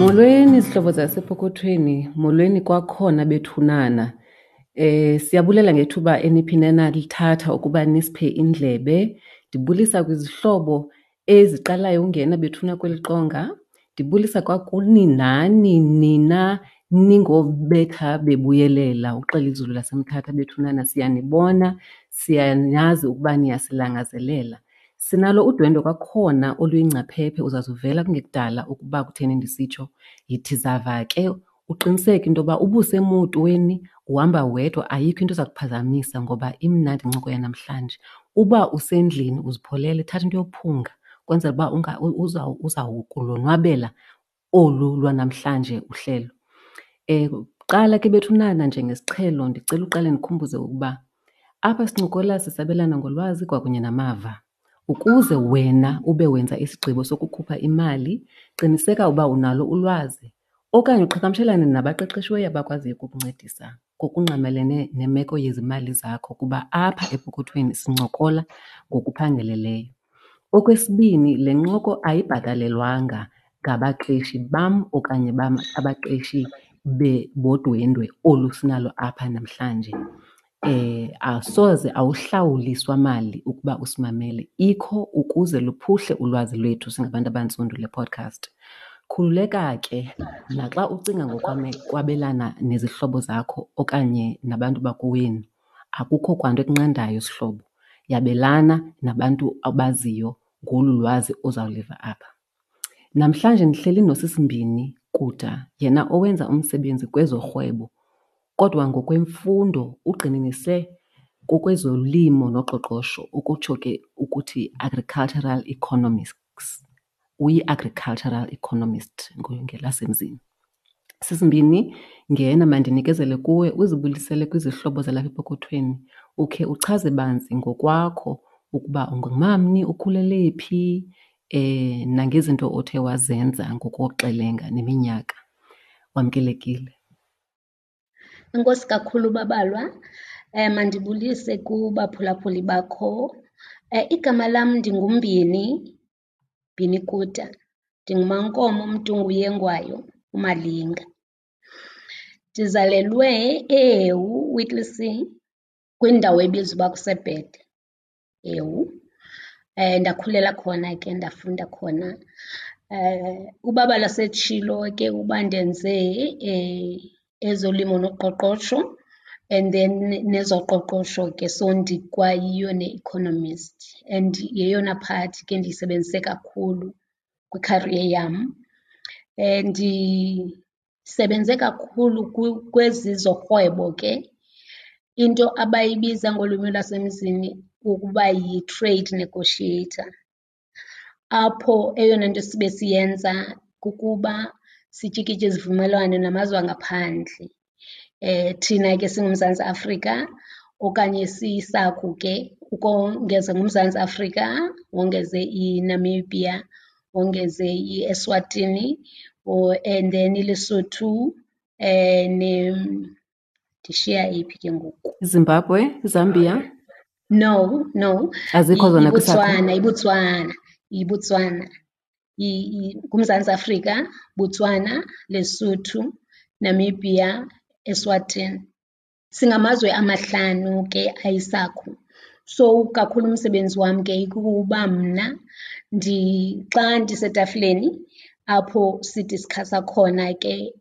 Molweni zihlobo zasepokothweni, molweni kwakhona bethunana. Siyabulela ngethuba eniphinde nalithatha ukuba nisiphe indlebe. Ndibulisa kwizihlobo eziqalayo ungena bethuna kweli qonga. Ndibulisa kwakuni nani nina ningobetha bebuyelela uxela izulu laseMthatha bethunana. Siyanibona, siyanazi ukuba niyasilangazelela. Sinalo udwendwe kwakhona oluyingcaphephe, uzazuvela kungekudala ukuba kutheni ndisitsho. Yithi zava ke uqiniseke into yoba ubusemotweni uhamba wedwa, ayikho into eza kuphazamisa ngoba imnandi incoko yanamhlanje. Uba usendlini uzipholele, thatha into yophunga ukwenzela uba uzawukulonwabela olu lwanamhlanje uhlelo. Kuqala ke bethunana njengesiqhelo ndicela uqale ndikhumbuze ukuba apha sincokola sisabelana ngolwazi kwakunye namava. Ukuze wena ube wenza isigqibo sokukhupha imali, qiniseka uba unalo ulwazi okanye uqhagamshelane nabaqeqeshiweyo abakwaziyo ukukuncedisa ngokungqamelene nemeko yezimali zakho kuba apha epokothweni sincokola ngokuphangeleleyo. Okwesibini, le ncoko ayibhatalelwanga ngabaqeshi bam okanye abaqeshi bodwendwe olu sinalo apha namhlanje. Asoze awuhlawuliswa mali ukuba usimamele, ikho ukuze luphuhle ulwazi lwethu singabantu abantsundu le podcast. Khululeka ke naxa ucinga ngokwabelana nezihlobo zakho okanye nabantu bakowenu, akukho kwanto ekunqandayo sihlobo. Yabelana nabantu abaziyo ngolu lwazi ozawuliva apha. Namhlanje ndihleli noSisimbini Kuda, yena owenza umsebenzi kwezorhwebo kodwa ngokwemfundo ugxininise kokwezolimo noqoqosho, ukutsho ke ukuthi agricultural economics. Uyi-agricultural economist ngelasemzini. Sisimbini, ngena mandinikezele kuwe uzibulisele kwizihlobo zalapha epokothweni, ukhe uchaze banzi ngokwakho ukuba ungumamni, ukhulele phi, nangezinto othe wazenza ngokoxelenga neminyaka. Wamkelekile. Enkosi kakhulu Babalwa. Mandibulise kubaphulaphuli bakho. Igama lam ndinguMbini, Mbini Kuta. NdinguMaNkomo Mntunguyengwayo uMalinga. Ndizalelwe eHewu, Whittlesea, kwindawo ebizwa uba kuseBhede, Hewu. Ndakhulela khona ke, ndafunda khona. Ubaba setshilo ke uba ndenze ezolimo noqoqosho and then nezoqoqosho ke, so ndikwayiyo ne-economist and yeyona part ke ndiyisebenzise kakhulu kwi-career yam. Ndisebenze kakhulu kwezi zorhwebo ke, into abayibiza ngolwimi lwasemzini ukuba yi-trade negotiator, apho eyona nto sibe siyenza kukuba sityikitye izivumelwano namazwe angaphandle. Thina ke singuMzantsi Afrika okanye siyiSACU ke, ukongeza nguMzantsi Afrika, wongeze iNamibia, wongeze iEswatini and then iLesotho, ndishiya eyiphi ke ngoku? Zimbabwe, Zambia? No, no. Azikho zona kwiSACU? IBotswana, iBotswana, iBotswana. NguMzantsi Afrika, Botswana, Lesotho, Namibia, Eswatini. Singamazwe amahlanu ke ayiSACU. So kakhulu umsebenzi wam ke ikukuba mna xa ndisetafileni apho sidiskhasa khona ke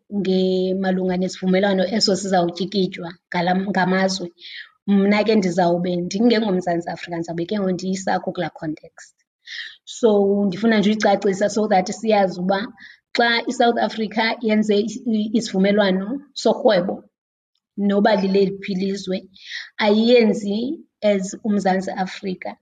malunga nesivumelwano eso sizawutyikitywa ngamazwe, mna ke ndizawube ndingengoMzantsi Afrika, ndizawube ke ngoku ndiyiSACU kulaa context. So ndifuna nje uyicacisa so that siyazi uba xa iSouth Africa yenze isivumelwano sorhwebo noba lileliphi ilizwe, ayiyenzi as uMzantsi Afrika.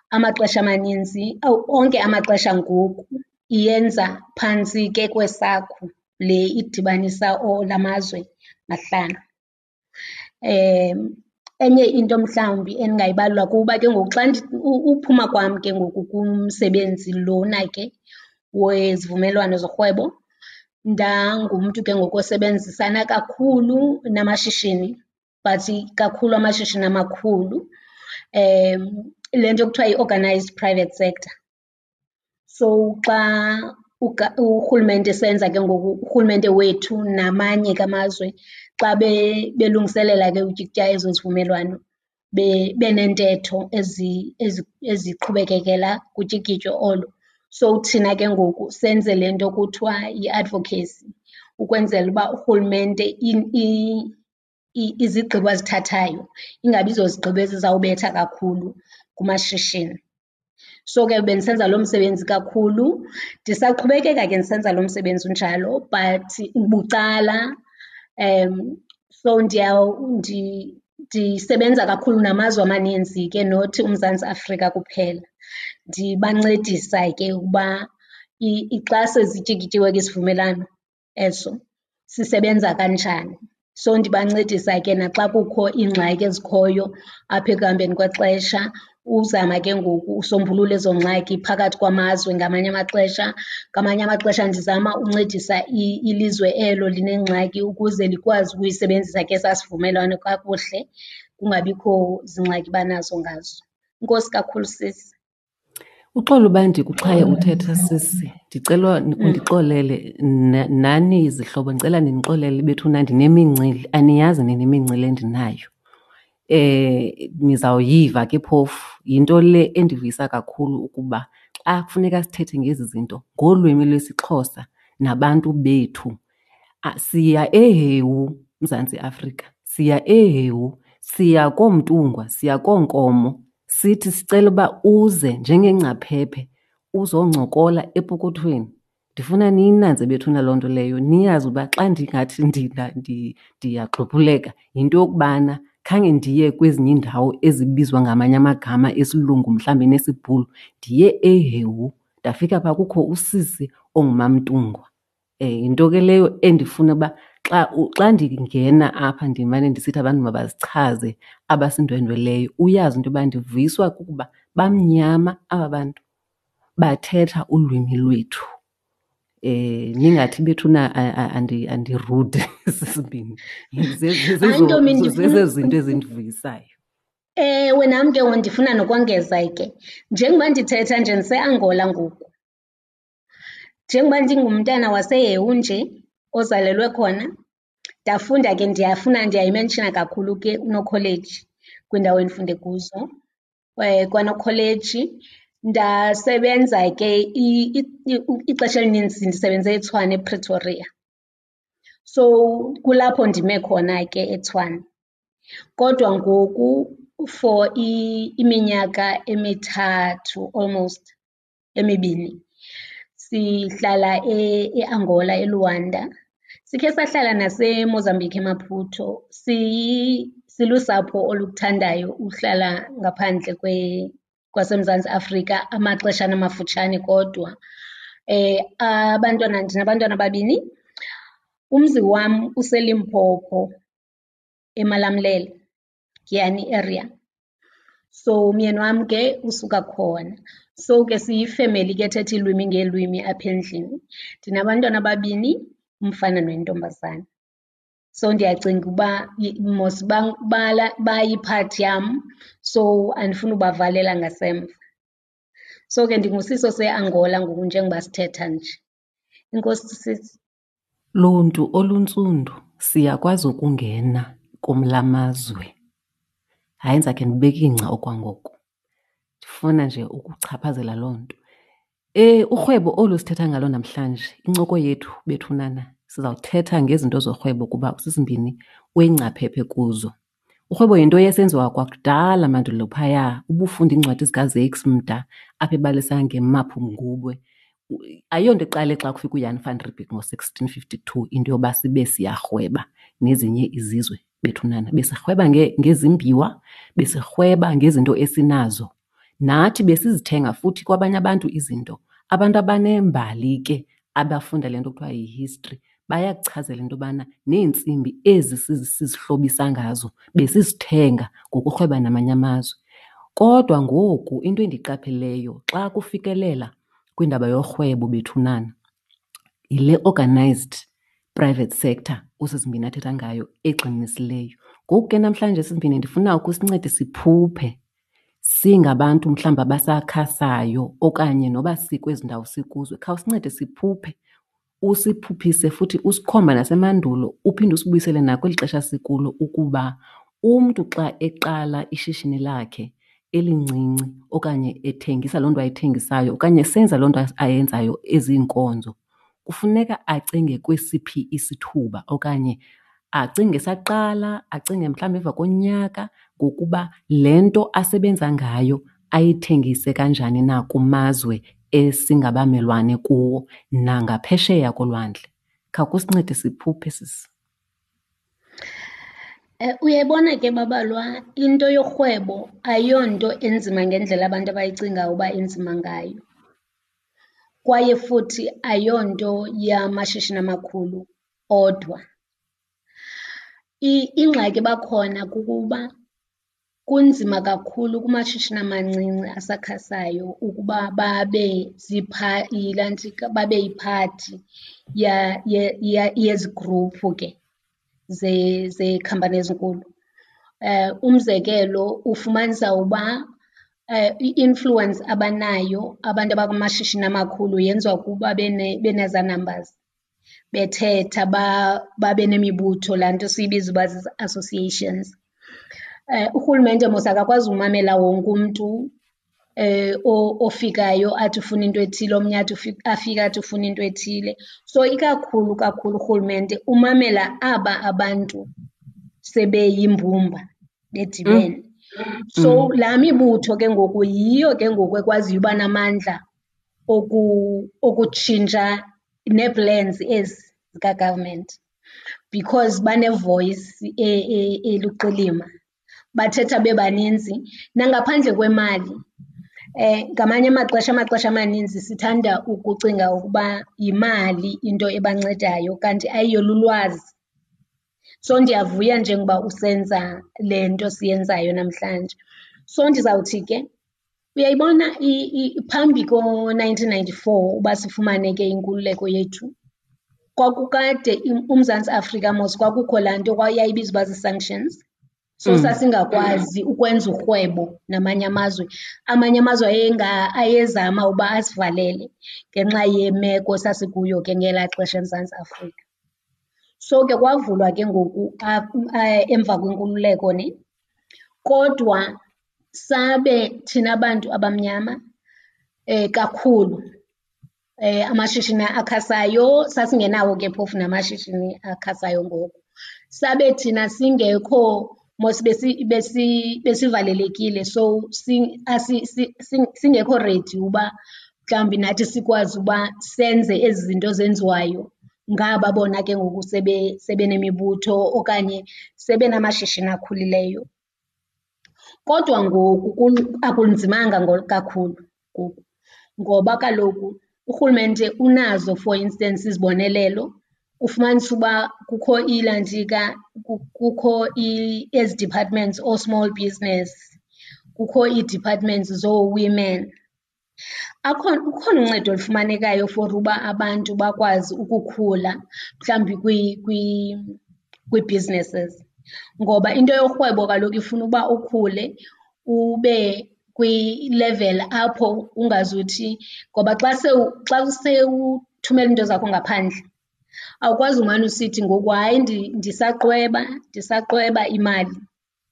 Amaxesha amaninzi, awu, onke amaxesha ngoku iyenza phantsi ke kweSACU le idibanisa la mazwe mahlanu. Enye into mhlawumbi endingayibalula kukuba ke ngoku xa uphuma kwam ke ngoku kumsebenzi lona ke wezivumelwano zorhwebo, ndangumntu ke ngoku osebenzisana kakhulu namashishini, but kakhulu amashishini amakhulu, le nto kuthiwa yi-organized private sector. So xa Urhulumente esenza ke ngoku, urhulumente wethu namanye ke amazwe xa belungiselela ke utyikitya ezo zivumelwano beneentetho eziqhubekekela kutyikityo olo. So thina ke ngoku senze le nto kuthiwa yi-advocacy ukwenzela uba urhulumente izigqibo azithathayo ingabi zozigqibo ezizawubetha kakhulu kumashishini. So ke bendisenza loo msebenzi kakhulu, ndisaqhubekeka ke ndisenza lo msebenzi unjalo but bucala. So ndisebenza kakhulu namazwe amaninzi ke not uMzantsi Afrika kuphela, ndibancedisa ke ukuba xa sezityikityiwe ke isivumelwano eso sisebenza kanjani. So ndibancedisa ke naxa kukho iingxaki ezikhoyo apha ekuhambeni kwexesha, uzama ke ngoku usombulula ezo ngxaki phakathi kwamazwe ngamanye amaxesha. Ngamanye amaxesha ndizama uncedisa ilizwe elo linengxaki ukuze likwazi ukuyisebenzisa ke esaa sivumelwano kakuhle, kungabikho zingxaki banazo ngazo. Enkosi kakhulu sisi. Uxolo uba ndikuxhaye uthetha sisi, ndicela undixolele nani zihlobo ndicela nindixolele bethuna ndinemincili, aniyazi nina imincili endinayo. Nizawuyiva ke phofu, yinto le endivuyisa kakhulu ukuba xa kufuneka sithethe ngezi zinto ngolwimi lwesiXhosa nabantu bethu. Siya eHewu, Mzantsi Afrika, siya eHewu, siya kooMntungwa, siya kooNkomo sithi sicela uba uze njengengcaphephe uzoncokola epokothweni. Ndifuna niyinanze bethuna loo nto leyo, niyazi uba xa ndingathi ndiyagxuphuleka yinto yokubana khange ndiye kwezinye iindawo ezibizwa ngamanye amagama esilungu mhlawumbi nesiBhulu. Ndiye eHewu ndafika phaa kukho usisi onguMamNtungwa. Yinto ke leyo endifuna uba xa xa ndingena apha ndimane ndisithi abantu mabazichaze abasindwendweleyo, uyazi into yoba ndivuyiswa kukuba bamnyama aba bantu bathetha ulwimi lwethu. Ningathi bethuna andirude sisibini, zezo zinto ezindivuyisayo. Ewe, nam ke ndifuna nokongeza ke, njengoba ndithetha nje ndiseAngola ngoku. Njengoba ndingumntana waseHewu nje ozalelwe khona, ndafunda ke ndiyafuna ndiyayimenshina kakhulu ke uNokholeji kwiindawo endifunde kuzo. KwaNokholeji ndasebenza ke ixesha elinintsi ndisebenze eTshwane, ePretoria. So kulapho ndime khona ke eTshwane. Kodwa ngoku for iminyaka emithathu almost emibini sihlala eAngola, eLuanda. Sikhe sahlala naseMozambique, eMaputo. Silusapho olukuthandayo uhlala ngaphandle kwaseMzantsi Afrika amaxeshana amafutshane kodwa. Abantwana, ndinabantwana ababini. Umzi wam useLimpopo, eMalamulele, Giyani area. So umyeni wam ke usuka khona. So ke siyifemeli ke ethetha iilwimi ngeelwimi apha endlini. Ndinabantwana ababini, umfana nentombazana. So ndiyacinga uba mos bayiphathi yam, so andifuni ubavalela ngasemva. So ke ndingusisi oseAngola ngoku njengoba sithetha nje. Enkosi sisi. Luntu oluntsundu, siyakwazi ukungena kumla mazwe. Hayi, ndizakhe ndibeke ingca okwangoku. Ndifuna nje ukuchaphazela loo nto. Urhwebo olu sithetha ngalo namhlanje, incoko yethu bethunana, sizawuthetha ngezinto zorhwebo kuba usisimbini uyingcaphephe kuzo. Urhwebo yinto eyayisenziwa kwakudala mandulo phaya, ubufunda iincwadi zikaZakes Mda apho ebalisa ngeMapungubwe. Ayonto iqale xa kufika uJan van Riebeeck ngo-sixteen fifty-two into yoba sibe siyarhweba nezinye izizwe bethunana. Besirhweba ngezimbiwa, besirhweba ngezinto esinazo. Nathi besizithenga futhi kwabanye abantu izinto. Abantu abanembali ke abafunda le nto kuthiwa yi-history bayakuchazela into yobana neentsimbi ezi sizihlobisa ngazo besizithenga ngokurhweba namanye amazwe. Kodwa ngoku into endiyiqapheleyo xa kufikelela kwindaba yorhwebo bethunana yile organized private sector uSisimbini athetha ngayo egxininisileyo. Ngoku ke namhlanje Simbini ndifuna ukusincede siphuphe. Singabantu mhlawumbi abasakhasayo okanye noba sikwezi ndawo sikuzo, khawusincede siphuphe, usiphuphise futhi usikhomba nasemandulo uphinde usibuyisele nakweli xesha sikulo ukuba umntu xa eqala ishishini lakhe elincinci okanye ethengisa loo nto ayithengisayo okanye esenza loo nto ayenzayo eziinkonzo, kufuneka acinge kwesiphi isithuba okanye acinge esaqala, acinge mhlawumbi emva konyaka ngokuba le nto asebenza ngayo ayithengise kanjani na kumazwe esingabamelwane kuwo nangaphesheya kolwandle. Khawukusincede siphuphe, sisi. Uyayibona ke babalwa, into yorhwebo ayonto enzima ngendlela abantu abayicingayo uba inzima ngayo, kwaye futhi ayonto yamashishini amakhulu odwa. Ingxaki eba khona kukuba kunzima kakhulu kumashishini amancinci asakhasayo ukuba babe ilantsika, babe yiphathi yezi gruphu ke zeekhampani ezinkulu. Umzekelo, ufumanisa uba i-influence abanayo abantu abakumashishini amakhulu yenziwa kuba benezaa numbers, bethetha babe nemibutho, laa nto siyibiza uba zii-associations. Urhulumente mos akakwazi umamela wonke umntu ofikayo athi ufuna into ethile, omnye athi afike athi ufuna into ethile. So ikakhulu kakhulu urhulumente umamela aba abantu sebeyimbumba bedibene. So laa mibutho ke ngoku yiyo ke ngoku ekwaziyo uba namandla okutshintsha nee-plans ezi zika-government because bane-voice eluqilima, bathetha bebaninzi nangaphandle kwemali. Ngamanye amaxesha, amaxesha amaninzi sithanda ukucinga ukuba yimali into ebancedayo kanti ayiyo, lulwazi. So ndiyavuya njengoba usenza le nto siyenzayo namhlanje. So ndizawuthi ke uyayibona phambi ko-nineteen ninety-four uba sifumane ke inkululeko yethu, kwakukade uMzantsi Afrika mos kwakukho laa nto yayibizwa uba zii-sanctions. So sasingakwazi ukwenza urhwebo namanye amazwe. Amanye amazwe ayezama uba asivalele ngenxa yemeko esasikuyo ke ngelaa xesha eMzantsi Afrika. So ke kwavulwa ke ngoku emva kwenkululeko ne, kodwa sabe thina bantu abamnyama kakhulu amashishini akhasayo, sasingenawo ke phofu namashishini akhasayo ngoko. Sabe thina singekho mos besivalelekile so singekho ready uba mhlawumbi nathi sikwazi uba senze ezi zinto zenziwayo ngaba bona ke ngoku sebenemibutho okanye sebenamashishini akhulileyo. Kodwa ngoku akunzimanga kakhulu ngoku ngoba kaloku urhulumente unazo for instance izibonelelo. Ufumanise uba kukho ilantsika, kukho ezi departments oo-small business, kukho ii-departments zoo-women. Akhona, ukhona uncedo olufumanekayo for uba abantu bakwazi ukukhula mhlawumbi kwii-businesses. Ngoba into yorhwebo kaloku ifuna uba ukhule ube kwi-level apho ungazuthi, ngoba xa xa sewuthumela iinto zakho ngaphandle awukwazi umane usithi ngoku hayi ndisaqweba, ndisaqweba imali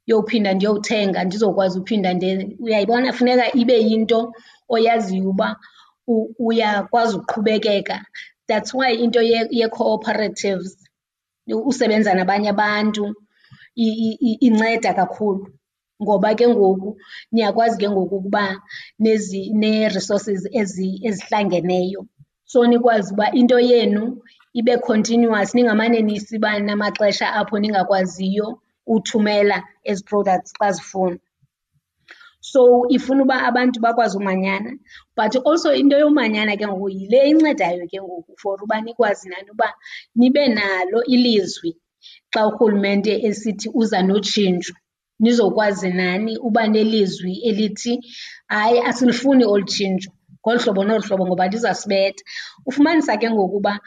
yophinda ndiyothenga ndizokwazi uphinda. Uyayibona, funeka ibe yinto oyaziyo uba uyakwazi uqhubekeka. That's why into yee-cooperatives, usebenza nabanye abantu, inceda kakhulu ngoba ke ngoku niyakwazi ke ngoku ukuba nee-resources ezihlangeneyo. So nikwazi uba into yenu ibe continuous, ningamane nisiba namaxesha apho ningakwaziyo uthumela ezi products xa zifunwa. So ifuna uba abantu bakwazi umanyana, but also into yomanyana ke ngoku yile incedayo ke ngoku for uba nikwazi nani uba nibe nalo ilizwi xa urhulumente esithi uza notshintsho, nizokwazi nani uba nelizwi elithi hayi asilifuni olu tshintsho ngolu hlobo nolu hlobo ngoba lizasibetha. Ufumanisa ke ngoku uba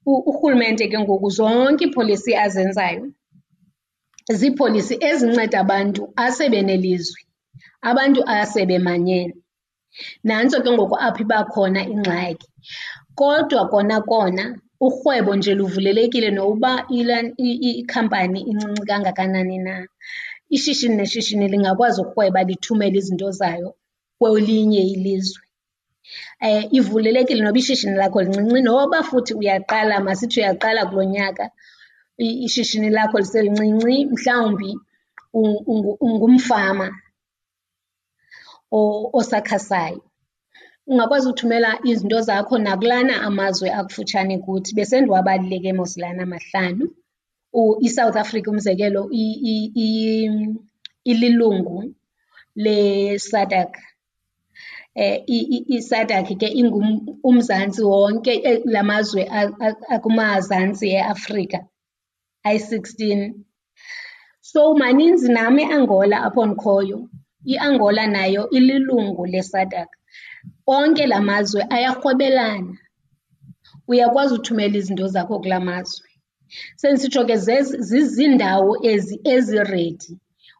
urhulumente ke ngoku zonke iipholisi azenzayo ziipholisi ezinceda abantu asebenelizwi. Abantu asebemanyene. Nantso ke ngoku apho iba khona ingxaki. Kodwa kona kona urhwebo nje luvulelekile nokuba ikhampani incinci kangakanani na. Ishishini neshishini lingakwazi ukurhweba lithumele izinto zayo kwelinye ilizwe. Ivulelekile noba ishishini lakho lincinci noba futhi uyaqala, masithi uyaqala kulo nyaka ishishini lakho liselincinci mhlawumbi ungumfama osakhasayo. Ungakwazi uthumela izinto zakho nakulana amazwe akufutshane kuthi, besendiwabalile ke mos lana mahlanu. ISouth Africa umzekelo ililungu leSADC. ISADC ke uMzantsi wonke, la mazwe akumazantsi eAfrika ayi-16. So maninzi nam eAngola apho ndikhoyo, iAngola nayo ililungu leSADC. Onke la mazwe ayarhwebelana, uyakwazi uthumela izinto zakho kulaa mazwe. Sendisitsho ke zizindawo ezi eziredi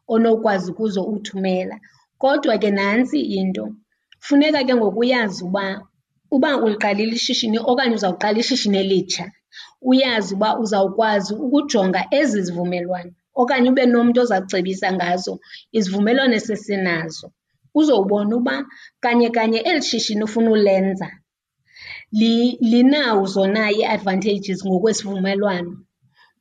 onokwazi kuzo uthumela. Kodwa ke nantsi into, funeka ke ngoku uyazi uba uba uliqalile ishishini okanye uzawuqala ishishini elitsha, uyazi uba uzawukwazi ukujonga ezi zivumelwano okanye ube nomntu oza kucebisa ngazo izivumelwano esesinazo. Uzowubona uba kanye kanye eli shishini ufuna ulenza linazo na ii-advantages ngokwesivumelwano.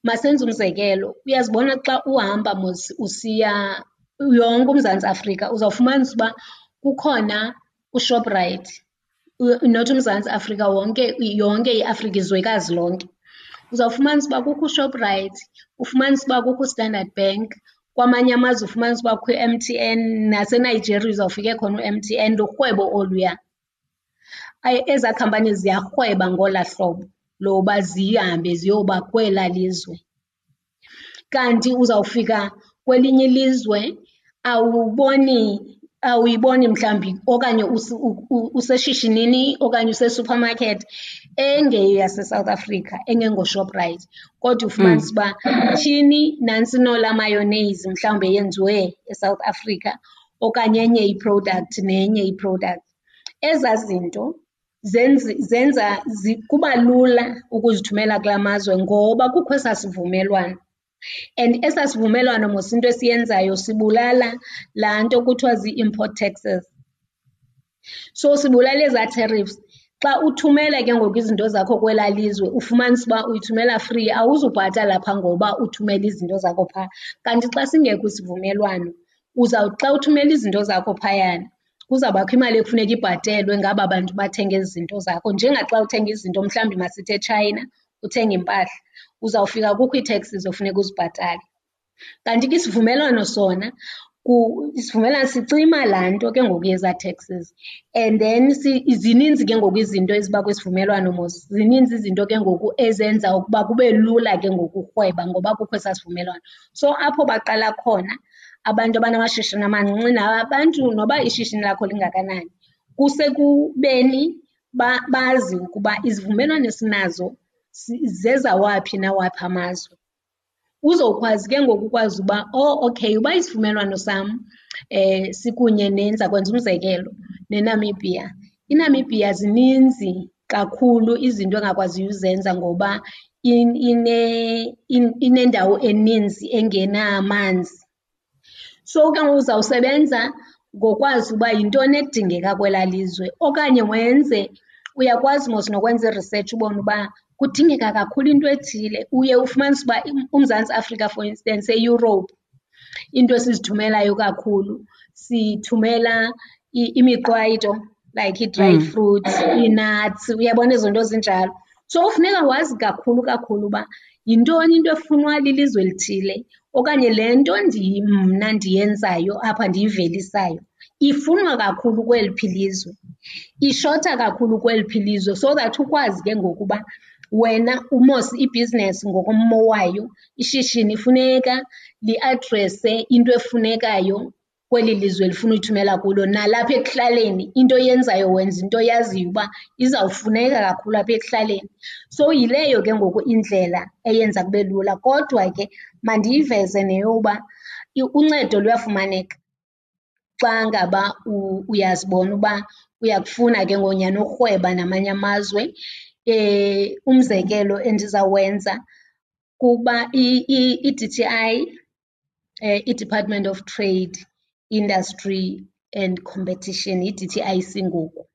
Masenze umzekelo, uyazibona xa uhamba mos usiya yonke uMzantsi Afrika uzawufumanisa uba kukhona uShoprite, not uMzantsi Afrika wonke, yonke iAfrika, izwekazi lonke. Uzawufumanisa uba kukho uShoprite, ufumanise uba kukho uStandard Bank, kwamanye amazwe ufumanise uba kukho i-M_T_N, naseNigeria uzawufika ekhona u-M_T_N, lurhwebo oluya. Ezaa khampani ziyarhweba ngolaa hlobo loba zihambe ziyoba kwelaa lizwe. Kanti uzawufika kwelinye ilizwe awuboni, awuyiboni mhlawumbi okanye useshishinini okanye use-supermarket engeyaseSouth Africa, engengoShoprite, kodwa ufumanise uba tyhini nantsi nolaa mayonnaise mhlawumbi eyenziwe eSouth Africa okanye enye i-product nenye i-product. Ezaa zinto zenza kuba lula ukuzithumela kulaa mazwe ngoba kukho esaa sivumelwano. And esaa sivumelwano mos into esiyenzayo sibulala laa nto kuthiwa zii-import taxes. So sibulala ezaa tariffs. Xa uthumela ke ngoku izinto zakho kwelaa lizwe ufumanise uba uyithumela free, awuzubhatala phaa ngoba uthumela izinto zakho phaa. Kanti xa singekho isivumelwano uzawuthi xa uthumela izinto zakho phayana kuzawubakho imali ekufuneka ibhatelwe ngaba bantu bathenga ezi zinto zakho. Njengaxa uthenga izinto mhlawumbi masithi eTshayina, uthenga impahla, uzawufika kukho ii-taxes ofuneka uzibhatale. Kanti ke isivumelwano sona, isivumelwano sicima laa nto ke ngoku yezaa taxes. And then zininzi ke ngoku izinto eziba kwisivumelwano mos, zininzi izinto ke ngoku ezenza ukuba kube lula ke ngoku urhweba ngoba kukho esaa sivumelwano. So apho baqala khona abantu abanamashishini amancinci nabantu noba ishishini lakho lingakanani, kusekubeni bazi ukuba izivumelwano esinazo zezawaphi nawaphi amazwe. Uzokwazi ke ngoku ukwazi uba, oh okay, uba isivumelwano sam sikunye nenza kwenza umzekelo neNamibia. INamibia zininzi kakhulu izinto engakwaziyo uzenza ngoba inendawo eninzi engenamanzi. So ke ngoku uzawusebenza ngokwazi uba yintoni edingeka kwelaa lizwe okanye wenze, uyakwazi mos nokwenza i-research ubone uba kudingeka kakhulu into ethile. Uye ufumanise uba uMzantsi Afrika for instance eEurope into esizithumelayo kakhulu sithumela imiqwayito like ii-dried fruits, ii-nuts, uyabona ezo nto zinjalo. So funeka wazi kakhulu kakhulu uba yintoni into efunwa lilizwe elithile okanye le nto mna ndiyenzayo apha ndiyivelisayo ifunwa kakhulu kweliphi ilizwe, ishota kakhulu kweliphi ilizwe, so that ukwazi ke ngoku uba wena umos ibhizinesi ngokommo wayo, ishishini funeka liadrese into efunekayo kweli lizwe lifuna uyithumela kulo. Nalapha ekuhlaleni into oyenzayo wenza into oyaziyo uba izawufuneka kakhulu apha ekuhlaleni. So yileyo ke ngoku indlela eyenza kube lula. Kodwa ke mandiyiveze neyoba uncedo luyafumaneka. Xa ngaba uyazibona uba uyakufuna ke ngoku nyhani urhweba namanye amazwe. Umzekelo endizawenza kukuba i-D_T_I, iDepartment of Trade, Industry and Competition, yi-D_T_I_C ngoku.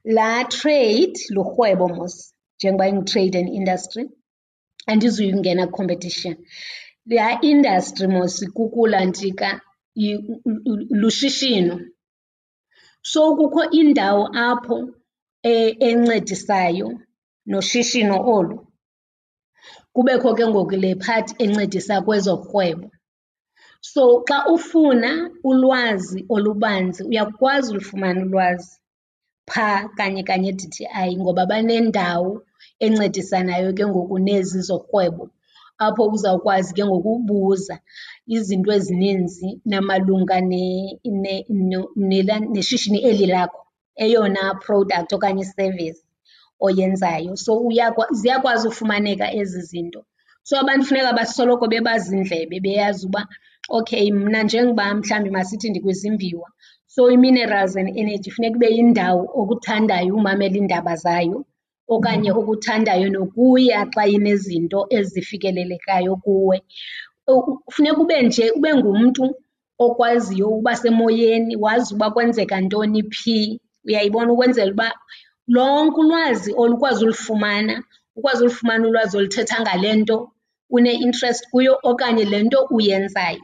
Laa trade lurhwebo mos njengoba inguTrade and Industry, andizuyungena kwi-competition. Laa industry mos kukulantsika, lushishino. So kukho indawo apho encedisayo noshishino olu, kubekho ke ngoku le part encedisa kwezorhwebo. So xa ufuna ulwazi olubanzi uyakwazi ulufumana ulwazi phaa kanye kanye e-D_T_I ngoba banendawo encedisanayo ke ngoku nezi zorhwebo, apho uzawukwazi ke ngoku ubuza izinto ezininzi namalunga neshishini eli lakho, eyona product okanye i-service oyenzayo. So ziyakwazi ufumaneka ezi zinto. So abantu funeka basoloko bebaziindlebe beyazi uba okay mna njengoba mhlawumbi masithi ndikwizimbiwa, so i-minerals and energy funeka ibe yindawo okuthandayo umamela iindaba zayo okanye okuthandayo nokuya xa inezinto ezifikelelekayo kuwe. Funeka ube nje ube ngumntu okwaziyo uba semoyeni, wazi uba kwenzeka ntoni phi, uyayibona? Ukwenzela uba lonke ulwazi olu ukwazi ulifumana, ukwazi ulifumana ulwazi oluthetha ngale nto une-interest kuyo okanye le nto uyenzayo.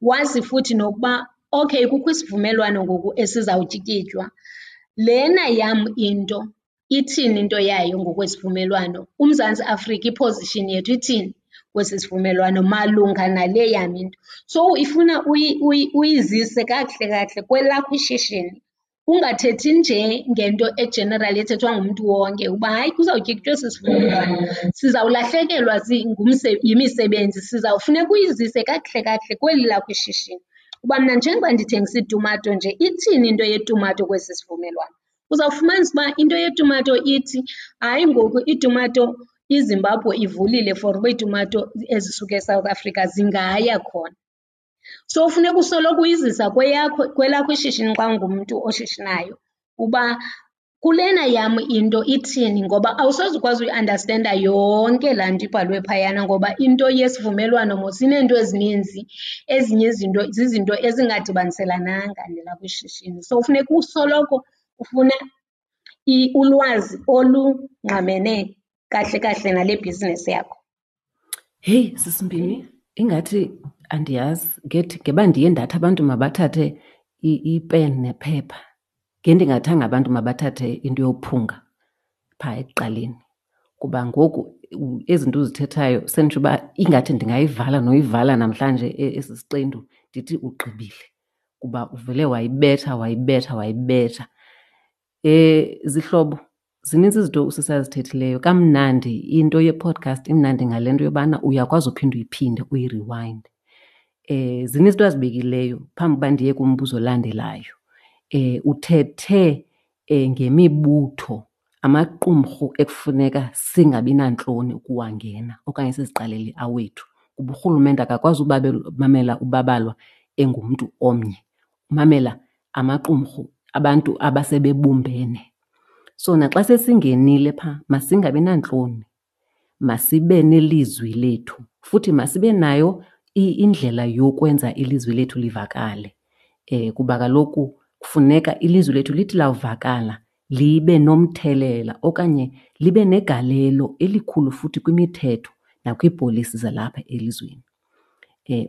Wazi futhi nokuba okay kukho isivumelwano ngoku esizawutyikitywa, lena yam into ithini into yayo ngokwesivumelwano? UMzantsi Afrika i-position yethu ithini kwesi sivumelwano malunga nale yam into? So ifuna uyizise kakuhle kakuhle kwelakho ishishini, ungathethi nje ngento e-general ethethwa ngumntu wonke uba hayi kuzawutyikitywa esi sivumelwano sizawulahlekelwa yimisebenzi. Sizawufuneka uyizise kakuhle kakuhle kweli lakho ishishini uba mna njengoba ndithengisa iitumato nje ithini into yetumato kwesi sivumelwano. Uzawufumanisa uba into yetumato ithi hayi ngoku iitumato iZimbabwe ivulile for uba iitumato ezisuka eSouth Africa zingaya khona. So funeka usoloko uyizisa kweyakho, kwelakho ishishini xa ungumntu oshishinayo uba kulena yam into ithini, ngoba awusoze ukwazi uyiandastenda yonke laa nto ibhalwe phayana ngoba into yesivumelwano mos ineento ezininzi, ezinye izinto zizinto ezingadibaniselananga nelakho ishishini. So funeka usoloko ufuna ulwazi olungqamene kahle kahle nale bhizinesi yakho. Heyi, sisimbini, ingathi andiyazi ngethi ngeba ndiye ndathi abantu mabathathe ipen nephepha. Ngendingathanga abantu mabathathe into yophunga phaa ekuqaleni kuba ngoku ezi zinto uzithethayo senditsho uba ingathi ndingayivala noyivala namhlanje esi siqendu ndithi ugqibile kuba uvele wayibetha wayibetha wayibetha. Zihlobo, zininzi izinto usisi azithethileyo. Kamnandi into ye-podcast imnandi ngale nto yobana uyakwazi uphinda uyiphinde uyiriwayinde. Zininzi izinto azibekileyo phambi uba ndiye kumbuzo olandelayo. Uthethe ngemibutho, amaqumrhu ekufuneka singabi nantloni ukuwangena okanye siziqalele awethu kuba urhulumente akakwazi mamela ubabalwa engumntu omnye, umamela amaqumrhu abantu abasebebumbene. So naxa sesingenile phaa masingabi nantloni, masibe nelizwi lethu futhi masibe nayo indlela yokwenza ilizwi lethu livakale. Kuba kaloku kufuneka ilizwi lethu lithi lawuvakala libe nomthelela okanye libe negalelo elikhulu futhi kwimithetho nakwiipolisi zalapha elizweni.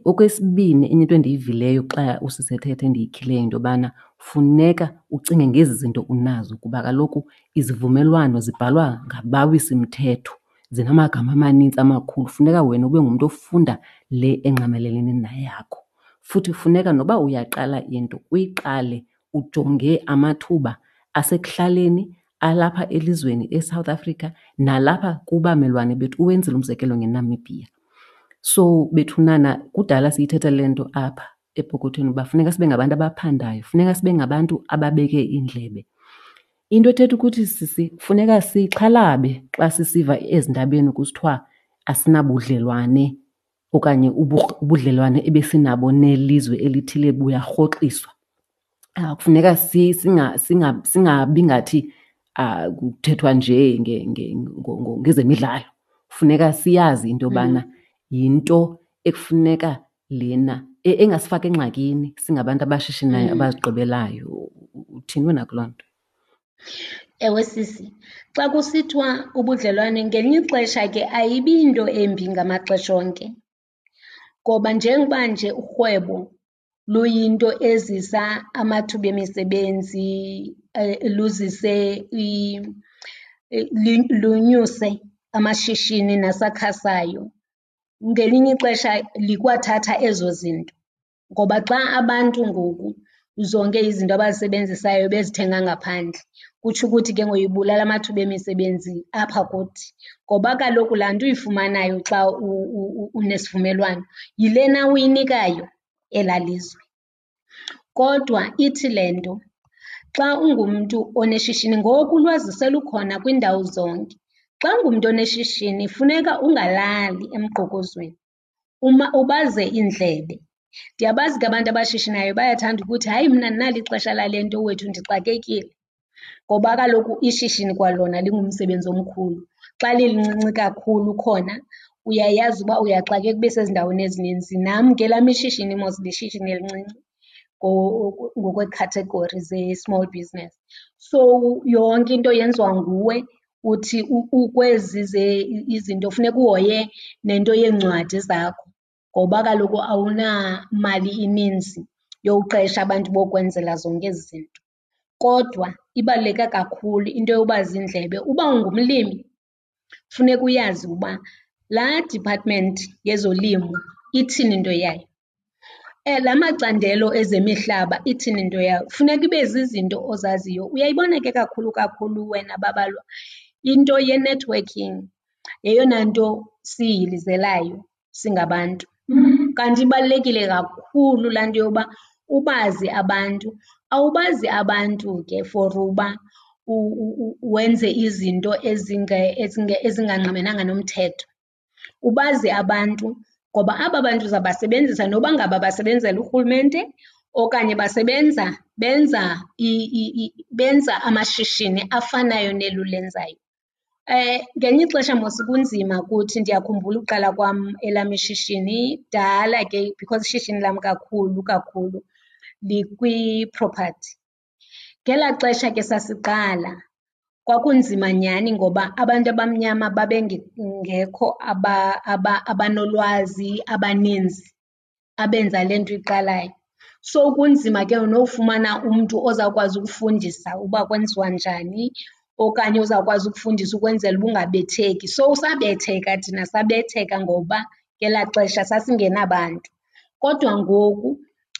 Okwesibini, enye into endiyivileyo xa usisi ethetha endiyikhileyo yinto yobana funeka ucinge ngezi zinto unazo kuba kaloku izivumelwano zibhalwa ngabawisimthetho, zinamagama amanintsi amakhulu. Funeka wena ube ngumntu ofunda le engqamelene neyakho. Futhi funeka noba uyaqala into uyiqale ujonge amathuba asekuhlaleni, alapha elizweni eSouth Africa nalapha kubamelwane bethu. Uwenzile umzekelo ngeNamibia. So bethunana kudala siyithetha le nto apha epokothweni uba funeka sibe ngabantu abaphandayo, funeka sibe ngabantu ababeke iindlebe. Into ethetha ukuthi sisi funeka sixhalabe xa sisiva ezindabeni kusithiwa asinabudlelwane. okanye ubudlelwane ebesinabo nelizwe elithile buyarhoxiswa. Kufuneka singabi ngathi kuthethwa nje ngezemidlalo. Funeka siyazi into yobana yinto ekufuneka lena engasifaka engxakini singabantu abashishinayo abazigqibelayo. Uthini wena kuloo nto? Ewe sisi, xa kusithiwa ubudlelwane ngelinye ixesha ke ayibi yinto embi ngamaxesha onke. Ngoba njengoba nje urhwebo luyinto ezisa amathuba emisebenzi, luzise lunyuse amashishini nasakhasayo, ngelinye ixesha likwathatha ezo zinto. Ngoba xa abantu ngoku zonke izinto abazisebenzisayo bezithenga ngaphandle, kutsho ukuthi ke ngoku ibulala amathuba emisebenzi apha kuthi. Ngoba kaloku laa nto uyifumanayo xa unesivumelwano yilena uyinikayo elaa lizwe. Kodwa ithi le nto xa ungumntu oneshishini, ngoku ulwazi selukhona kwiindawo zonke. Xa ungumntu oneshishini funeka ungalali emgqokozweni, ubaze iindlebe. Ndiyabazi ke abantu abashishinayo bayathanda ukuthi, hayi mna andinalo ixesha lale nto wethu ndixakekile. Ngoba kaloku ishishini kwalona lingumsebenzi omkhulu. Xa lilincinci kakhulu khona uyayazi uba uyaxakeka ube sezindaweni ezininzi. Nam ke elam ishishini mos lishishini elincinci ngokweekhathegori ze-small business. So yonke into yenziwa nguwe, uthi ukwezi izinto funeka uhoye nento yeencwadi zakho ngoba kaloku awunamali ininzi yowuqesha abantu bokwenzela zonke ezi zinto. Kodwa ibaluleke kakhulu into yoba ziindlebe. Uba ungumlimi funeka uyazi uba laa department yezolimo ithini into yayo, la macandelo ezemihlaba ithini into yawo. Funeka ibe zizinto ozaziyo. Uyayibona ke kakhulu kakhulu wena Babalwa, into ye-networking yeyona nto siyihilizelayo singabantu. Kanti ibalulekile kakhulu laa nto yoba ubazi abantu. Awubazi abantu ke for uba wenze izinto ezingangqamenanga nomthetho. Ubazi abantu ngoba aba bantu uzabasebenzisa noba ngaba basebenzela urhulumente okanye basebenza benza benza amashishini afanayo neli ulenzayo. Ngelinye ixesha mos kunzima kuthi, ndiyakhumbula uqala kwam elam ishishini kudala ke because ishishini lam kakhulu kakhulu likwi-property. Ngelaa xesha ke sasiqala kwakunzima nyhani ngoba abantu abamnyama babengekho abanolwazi abaninzi abenza le nto uyiqalayo. So kunzima ke nofumana umntu ozawukwazi ukufundisa uba kwenziwa njani okanye ozawukwazi ukufundisa ukwenzela uba ungabetheki. So sabetheka thina, sabetheka ngoba ngelaa xesha sasingenabantu. Kodwa ngoku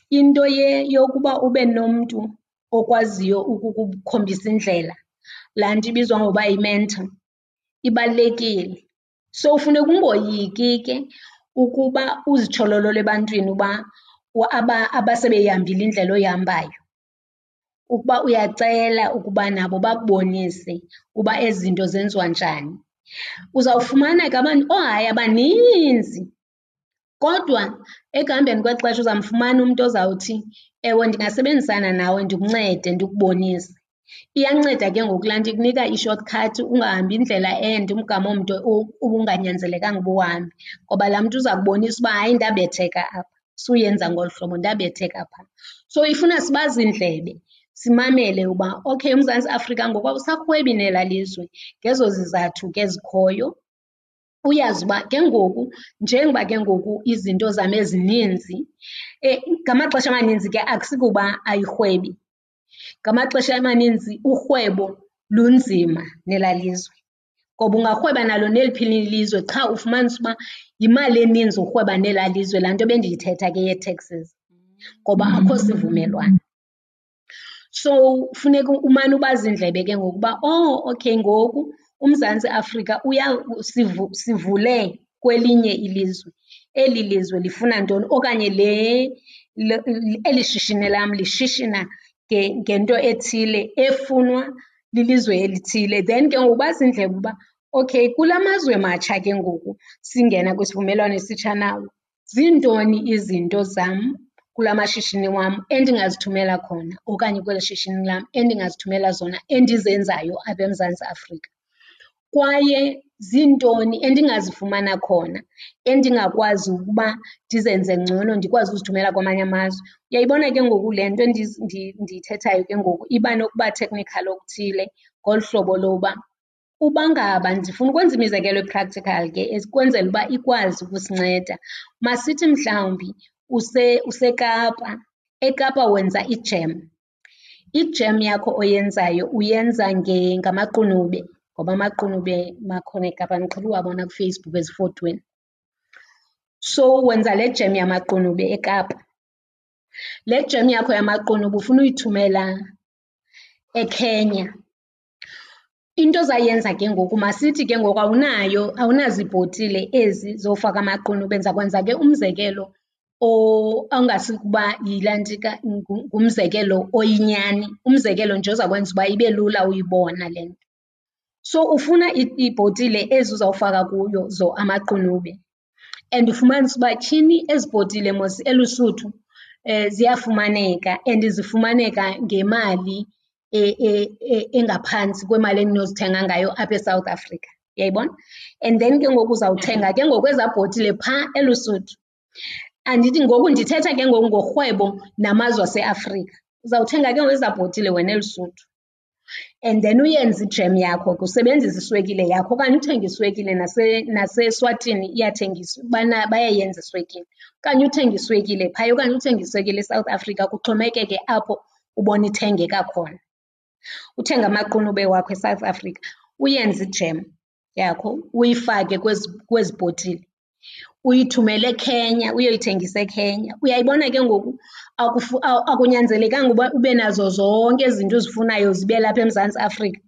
into yokuba ube nomntu okwaziyo ukukukhombisa indlela, laa nto ibizwa ngokuba yi-mentor, ibalulekile. So funeka ungoyiki ke ukuba uzitshololole ebantwini uba abasebeyihambile indlela oyihambayo, ukuba uyacela ukuba nabo bakubonise uba ezi zinto zenziwa njani. Uzawufumana ke abantu, oohayi abaninzi, kodwa ekuhambeni kwexesha uzamfumana umntu ozawuthi, ewe, ndingasebenzisana nawe ndikuncede ndikubonise. Iyanceda ke ngoku laa nto ikunika i-short cut ungahambi indlela ende, umgama omde ubunganyanzelekanga uba uwuhambe. Ngoba laa mntu uza kubonisa uba hayi ndabetheka apha, suyenza ngolu hlobo ndabetheka phaa. So ifuna sibaze iindlebe simamele uba okay uMzantsi Afrika ngoku awusarhwebi nelaa lizwe ngezo zizathu ke zikhoyo. Uyazi uba ke ngoku njengoba ke ngoku izinto zam ezininzi, ngamaxesha amaninzi ke akusikuba ayirhwebi, ngamaxesha amaninzi urhwebo lunzima nelaa lizwe. Ngoba ungarhweba nalo neliphi na ilizwe qha ufumanise uba yimali eninzi urhweba nelaa lizwe, laa nto bendiyithetha ke yee-taxes, ngoba akho sivumelwano. So funeka umane ubaza iindlebe ke ngoku uba oh okay ngoku uMzantsi Afrika sivule kwelinye ilizwe, eli lizwe lifuna ntoni okanye eli shishini lam lishishina ngento ethile efunwa lilizwe elithile. Then ke ngoku ubaze iindlebe uba okay kula mazwe matsha ke ngoku singena kwisivumelwano esitsha nawo. Ziintoni izinto zam kula mashishini wam endingazithumela khona okanye kweli shishini lam endingazithumela zona endizenzayo apha eMzantsi Afrika? Kwaye ziintoni endingazifumana khona endingakwazi ukuba ndizenze ngcono ndikwazi uzithumela kwamanye amazwe? Uyayibona ke ngoku le nto ndiyithethayo ke ngoku iba nokuba technical okuthile ngolu hlobo loba uba ngaba, ndifuna ukwenza imizekelo e-practical ke ukwenzela uba ikwazi ukusinceda. Masithi mhlawumbi useKapa, eKapa wenza ijem. Ijem yakho oyenzayo uyenza ngamaqunube ngoba amaqunube makhona eKapa, ndiqhele uwabona kuFacebook ezifotweni. So wenza le jem yamaqunube eKapa. Le jem yakho yamaqunube ufuna uyithumela eKenya. Into ozayenza ke ngoku, masithi ke ngoku awunayo, awunazibhotile ezi zofaka amaqunube. Ndiza kwenza ke umzekelo ongazukuba yilantsika, ngumzekelo oyinyani, umzekelo nje ozawukwenza uba ibe lula uyibona le nto. So ufuna iibhotile ezi uzawufaka kuyo amaqunube and ufumanise uba tyhini ezi bhotile mos eLusuthu ziyafumaneka and zifumaneka ngemali engaphantsi kwemali endinozithenga ngayo apha eSouth Africa, uyayibona? And then ke ngoku uzawuthenga ke ngoku ezaa bhotile phaa eLusuthu. Andithi ngoku ndithetha ke ngoku ngorhwebo namazwe aseAfrika. Uzawuthenga ke ngoku ezaa bhotile wena eLusuthu and then uyenze ijem yakho ke usebenzise iswekile yakho okanye uthenge iswekile naseSwatini iyathengiswa, bayayenza iswekile. Okanye uthenge iswekile phaya okanye uthenge iswekile eSouth Africa, kuxhomekeke apho ubona ithengeka khona. Uthenge amaqunube wakho eSouth Africa uyenze ijem yakho uyifake kwezi, kwezi bhotile uyithumele eKenya uyoyithengisa eKenya. Uyayibona ke ngoku akunyanzelekanga uba ube nazo zonke ezi zinto uzifunayo zibe lapha eMzantsi Afrika.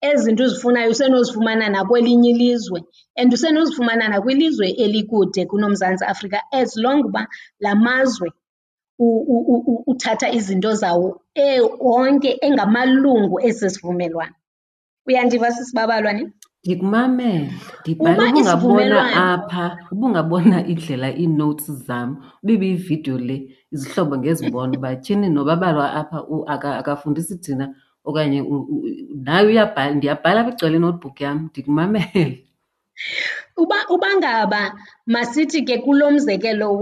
Ezi zinto uzifunayo usenozifumana nakwelinye ilizwe and usenozifumana nakwilizwe elikude kunoMzantsi Afrika as long uba la mazwe uthatha izinto zawo onke engamalungu esi sivumelwano. Uyandiva sisibabalwa ne? Ndikumamele, ndibhala. Ubungabona apha, ubungabona indlela ii-notes zam, uba ibiyividiyo le, izihlobo ngezibona uba tyhini nobabalwa apha akafundisi thina okanye naye uyabhala. Ndiyabhala apha igcwele i-notebook yam, ndikumamele. Uba ngaba masithi ke kulo mzekelo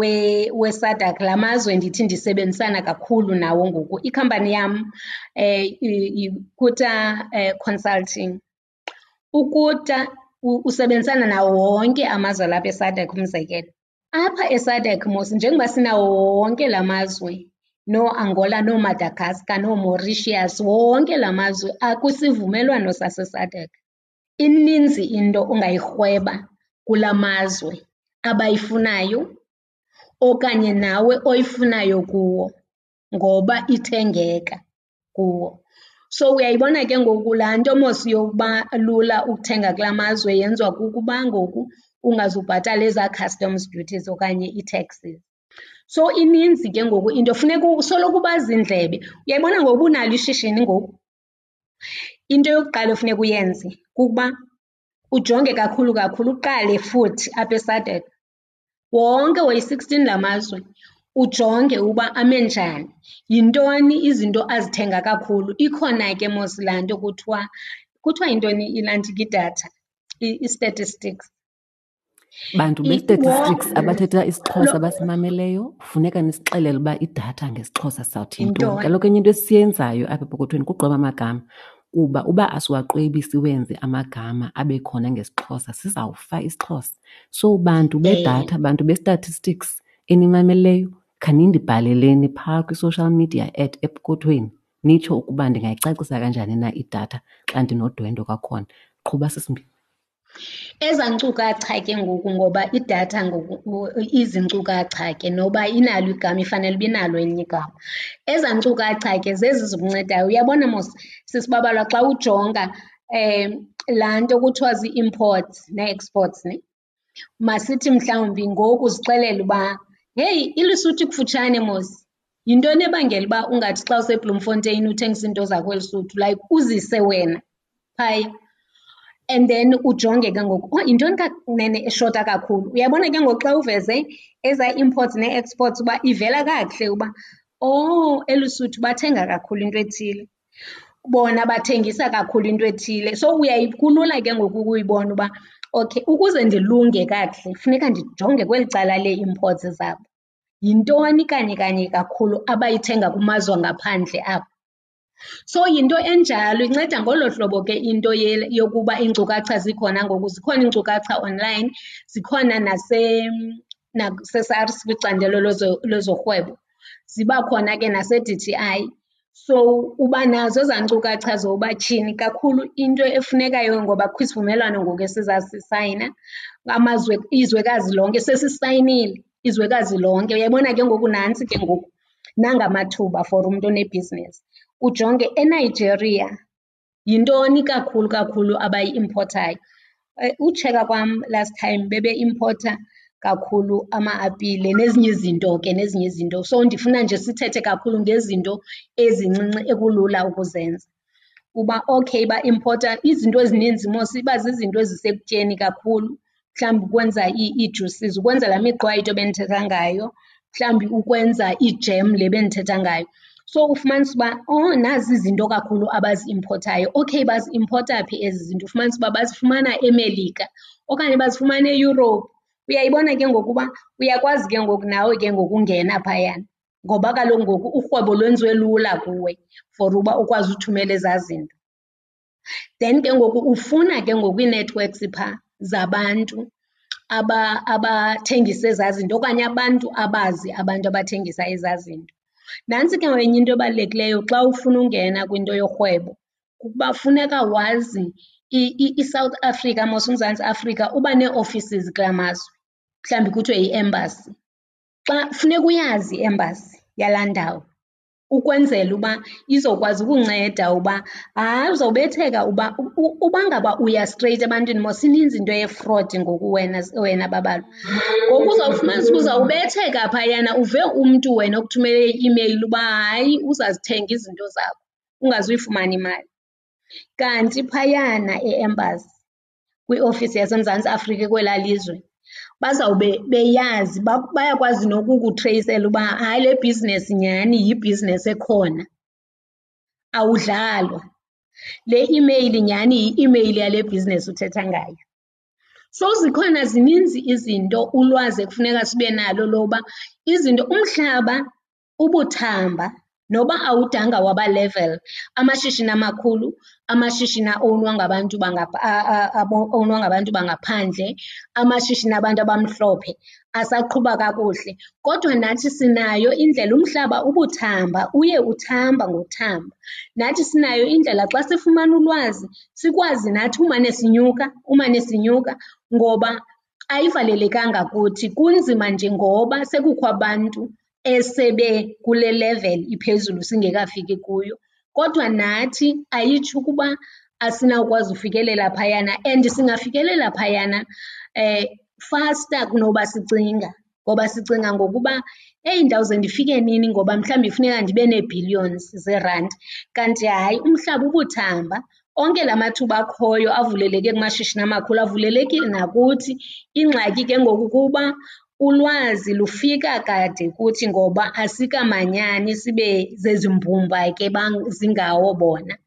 weSADC, la mazwe ndithi ndisebenzisana kakhulu nawo ngoku, ikhampani yam yiKuta Consulting. UKuta usebenzisana nawo wonke amazwe alapha eSADC umzekelo. Apha eSADC mos njengoba sinawo wonke la mazwe, nooAngola, nooMadagascar, nooMauritius, wonke la mazwe akwisivumelwano saseSADC. Ininzi into ongayirhweba kula mazwe abayifunayo okanye nawe oyifunayo kuwo ngoba ithengeka kuwo. So uyayibona ke ngoku laa nto mos yokuba lula ukuthenga kula mazwe yenziwa kukuba ngoku ungazubhatala ezaa customs duties okanye ii-taxes. So ininzi ke ngoku into, funeka usoloko ubaza iindlebe. Uyayibona ngoku uba unalo ishishini ngoku, into yokuqala efuneka uyenze kukuba ujonge kakhulu kakhulu, uqale futhi apha eSADC. Wonke woyi-sixteen la mazwe ujonge uba ame njani, yintoni izinto azithenga kakhulu. Ikhona ke mos laa nto kuthiwa, kuthiwa yintoni ilantsika idatha, i-statistics. Bantu be-statistics abathetha isiXhosa abasimameleyo, funeka nisixelele uba idatha ngesiXhosa sawuthi yintoni. Kaloku enye into esiyenzayo apha epokothweni kugqweba amagama, kuba uba asiwaqwebi siwenze amagama abe khona ngesiXhosa sizawufa isiXhosa. So bantu bedatha, bantu be-statistics enimameleyo, khanindibhaleleni phaa kwi-social media at epokothweni nitsho ukuba ndingayicacisa kanjani na idatha xa ndinodwendwe kwakhona. Qhuba sisimbini. Ezaa nkcukacha ke ngoku, ngoba idatha ngoku izinkcukacha ke noba inalo igama ifanele uba inalo elinye igama. Ezaa nkcukacha ke zezi zikuncedayo. Uyabona mos sisibabalwa xa ujonga laa nto kuthiwa zii-imports nee-exports ne, masithi mhlawumbi ngoku uzixelele uba heyi iLesotho ikufutshane mos, yintoni ebangela uba ungathi xa useBloemfontein uthengisa iinto zakho eLesotho, like uzise wena phaya. And then ujonge ke ngoku, oh yintoni kanene eshota kakhulu. Uyabona ke ngoku xa uveze ezaa imports nee-exports uba ivela kakuhle uba, oh eLusuthu bathenga kakhulu into ethile, bona bathengisa kakhulu into ethile. So kulula ke ngoku ukuyibona uba okay ukuze ndilunge kakuhle funeka ndijonge kweli cala lee-imports zabo. Yintoni kanye kanye kakhulu abayithenga kumazwe angaphandle apho? So yinto enjalo, inceda ngolo hlobo ke into yokuba iinkcukacha zikhona ngoku. Zikhona iinkcukacha online, zikhona naseSARS kwicandelo lezorhwebo, ziba khona ke nase-D_T_I. So uba nazo ezaa nkcukacha zoba tyhini kakhulu into efunekayo ngoba kukho isivumelwano ngoku esizasisayina amazwe, izwekazi lonke sesisayinile, izwekazi lonke. Uyayibona ke ngoku nantsi ke ngoku, nanga amathuba for umntu onebhizinesi. Ujonge eNigeria yintoni kakhulu kakhulu abayi-impothayo. Utsheka kwam last time bebeimpotha kakhulu ama-apile nezinye izinto ke, nezinye izinto. So ndifuna nje sithethe kakhulu ngezinto ezincinci ekulula ukuzenza. Uba okay baimpotha izinto ezininzi mos iba zizinto ezisekutyeni kakhulu, mhlawumbi ukwenza ii-juices, ukwenza laa miqwayito bendithetha ngayo, mhlawumbi ukwenza ijem le bendithetha ngayo. So ufumanise uba, oh nazi izinto kakhulu abaziimpothayo. Okay, baziimpotha phi ezi zinto? Ufumanise uba bazifumana eMelika okanye bazifumana eEurope. Uyayibona ke ngoku uba uyakwazi ke ngoku nawe ke ngoku ungena phayana ngoba kaloku ngoku urhwebo lwenziwe lula kuwe for uba ukwazi uthumela ezaa zinto. Then ke ngoku ufuna ke ngoku ii-networks phaa zabantu abathengisa ezaa zinto okanye abantu abazi abantu abathengisa ezaa zinto. Nantsi ke enye into ebalulekileyo xa ufuna ungena kwinto yorhwebo, kukuba funeka wazi iSouth Africa mos, uMzantsi Afrika uba nee-offices kulaa mazwe, mhlawumbi kuthiwe yi-embassy. Xa funeka uyazi i-embassy yalaa ndawo ukwenzela uba izokwazi ukunceda uba hayi uzawubetheka uba uba ngaba uya straight ebantwini mos ininzi into ye-fraud ngoku wena, wena Babalwa. Ngoku uzawufumanisa uba uzawubetheka phayana uve umntu wena okuthumele i-imeyili uba hayi uzazithenga izinto zakho ungazuyifumana imali. Kanti phayana e-embassy kwiofisi yaseMzantsi Afrika kwelaa lizwe bazawube beyazi, bayakwazi nokukutreyisela uba hayi le bhizinesi nyhani yibhizinesi ekhona, awudlalwa. Le imeyili nyhani yi-imeyili yale bhizinesi uthetha ngayo. So zikhona zininzi izinto ulwazi ekufuneka sibe nalo loba izinto, umhlaba ubuthamba noba awudanga waba level. Amashishini amakhulu, amashishini a-ownwa ngabantu owunwa ngabantu bangaphandle, amashishini abantu abamhlophe asaqhuba kakuhle. Kodwa nathi sinayo indlela, umhlaba ubuthamba, uye uthamba ngokuthamba. Nathi sinayo indlela xa sifumana ulwazi sikwazi nathi umane sinyuka, umane sinyuka ngoba ayivalelekanga kuthi. Kunzima nje ngoba sekukho abantu esebe kule level iphezulu singekafiki kuyo. Kodwa nathi ayitsho ukuba asinawukwazi ufikelela phayana and singafikelela phayana faster kunoba sicinga. Ngoba sicinga ngokuba eyi ndawuze ndifike nini ngoba mhlawumbi funeka ndibe nee-billions zeerandi. Kanti hayi umhlaba ubuthamba, onke la mathuba akhoyo avuleleke kumashishini amakhulu avulelekile nakuthi. Ingxaki ke ngoku kuba ulwazi lufika kade kuthi ngoba asikamanyani sibe zezi mbumba ke zingawo bona.